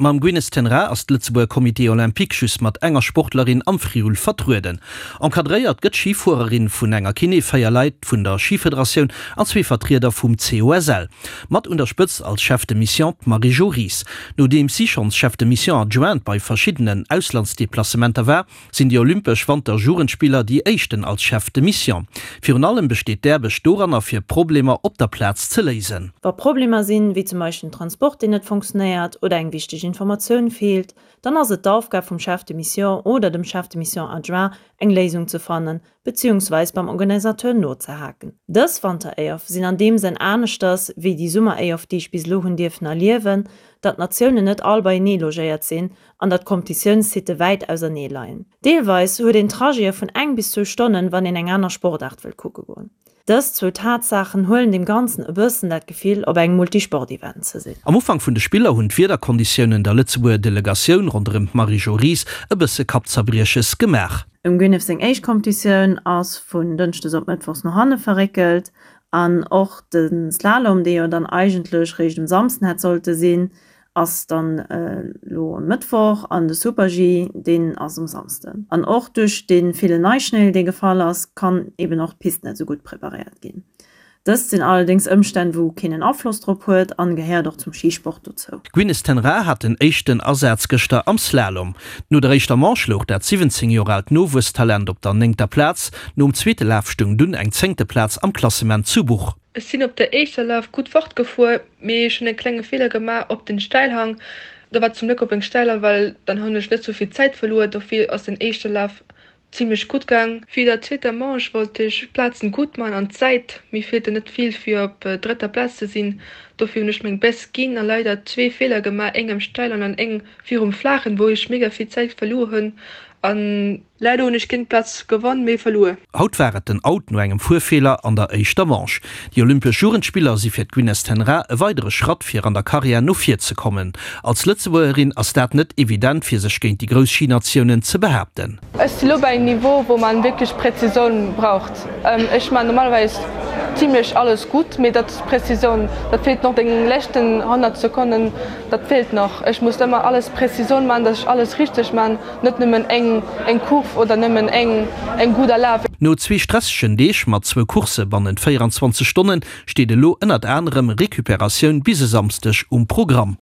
Mam Gwyneth ten Raa ass d'Lëtzebuerger Comité Olympique just mat enger Sportlerin am Friul vertrueden. Encadréiert gëtt d'Schifuererin vun enger Kiné, 4 Leit vun der Schifederatioun an zwee Vertrieder vum COSL. Mat un der Spëtzt als Chef de Mission d'Marie-Jo Ries. Nodeems si schonns Chef de Mission adjointe bei verschiddenen Auslandsdeplacementer war, sinn déi Olympesch Wanter-Jugendspiller déi éischten als Chef de Mission. Virun allem besteet d'Aarbecht doranner fir Problemer op der Plaz ze léisen. Wa Problemer sinn, wéi zum Beispill den Transport deen net funktionéiert oder eng wichteg Informatioun feelt, dann ass et d'Aufgab vum Chef de Mission oder dem Chef de Mission adjoint eng Léisung ze fannen, beziehungsweis beim Organisateur nozehaken. Dës Wanter-EOF sinn an deem Sënn aneschters wéi déi Summer-EOF déi ech bis elo hunn dierfen erliewen, datt d'Natiounen net all beienee logéiert sinn an datt d'Kompetitiounssitte wäit ausernee leien. Deelweis huet een Trajete vun eng bis zwou Stonnen, wann een eng aner Sportaart wëll kucke goen. Dës zwou Tatsaachen huelen dem Ganzen e bëssen dat Gefill, op engem Multisport-Event ze sinn. Am Ufank vun de Spiller hunn d'Wiederkonditiounen der Lëtzebuerger Delegatioun ronderëm d'Marie-Jo Ries e bësse Kappzerbrieches gemaach. Dem Gwyneth seng éischt Kompetitioun ass vun Dënschdes op Mëttwochs no hanne verréckelt an och de Slalom, dee jo dann eigentlech réischt um Samsden hätt sollte sinn, ass dann elo e Mëttwoch an de Super-G, deen ass um Samsden. An och duerch dee villen Neischnéi, dee gefall ass, kann eben och d'Pist net esou gutt preparéiert ginn. Dëst sinn allerdéngs Ëmstänn, wou keen en Afloss drop huet an gehéiert och zum Schisport dozou. D'Gwyneth ten Raa hat den éischten Asaz gëschter am Slalom. No der éischter Manche louch dat 17 Joer aalt Nowuesstalent op der néngter Plaz. Nom zweete Laf stoung dunn eng zéngte Plaz am Klassement zu Buch. Ech sinn op der éischter Laf gutt fortgefuer, mee ech hunn e klenge Feeler gemaach op den Steilhang. Da war zum Gléck op eng Steiler, well dann hunn ech net sou vill Zäit verluer. Dofir ass den éischte Laf zimmlech gutt gaang. Fir der zweeter Manche wollt ech d'Plazen gutt man an d'Zäit, mir feelte net vill fir op drëtter Plaz ze sinn. Dofir hunn ech meng Best ginn a leider zwee Feeler gemaach, eng am Steilen an eng virum Flaachen, wou ech mega vill Zäit verluer hunn an Leider hunn ech géint d'Plaz gewonn, mee verluer. Haut war et den Out no engem Fuerfeeler an der éischter Manche. Déi Olympesch Jugendspiller si fir d'Gwyneth ten Raa e weidere Schratt fir an der Karriär no vir ze kommen. Als Lëtzebuergerin ass dat net evident fir sech géint déi grouss Schinatiounen ze behaapten. Ech si lo bei engem Niveau wou man wierklech Präzisoun braucht. Ech man normalerweis zimlech alles gutt, mee dat Präzisoun dat feelt noch, deng leschten 100 Sekonnen dat feelt nach. Ech muss ëmmer alles Präzisoun man, dass ech alles richteg man. Net nëmmen eng eng Kurv oder nëmmen eng eng gudder Laf. No zwee stressegen Deeg mat zwou Coursse bannent 24 Stonnen steet elo ënnert anerem Recuperatioun bis e Samsdeg um Programm.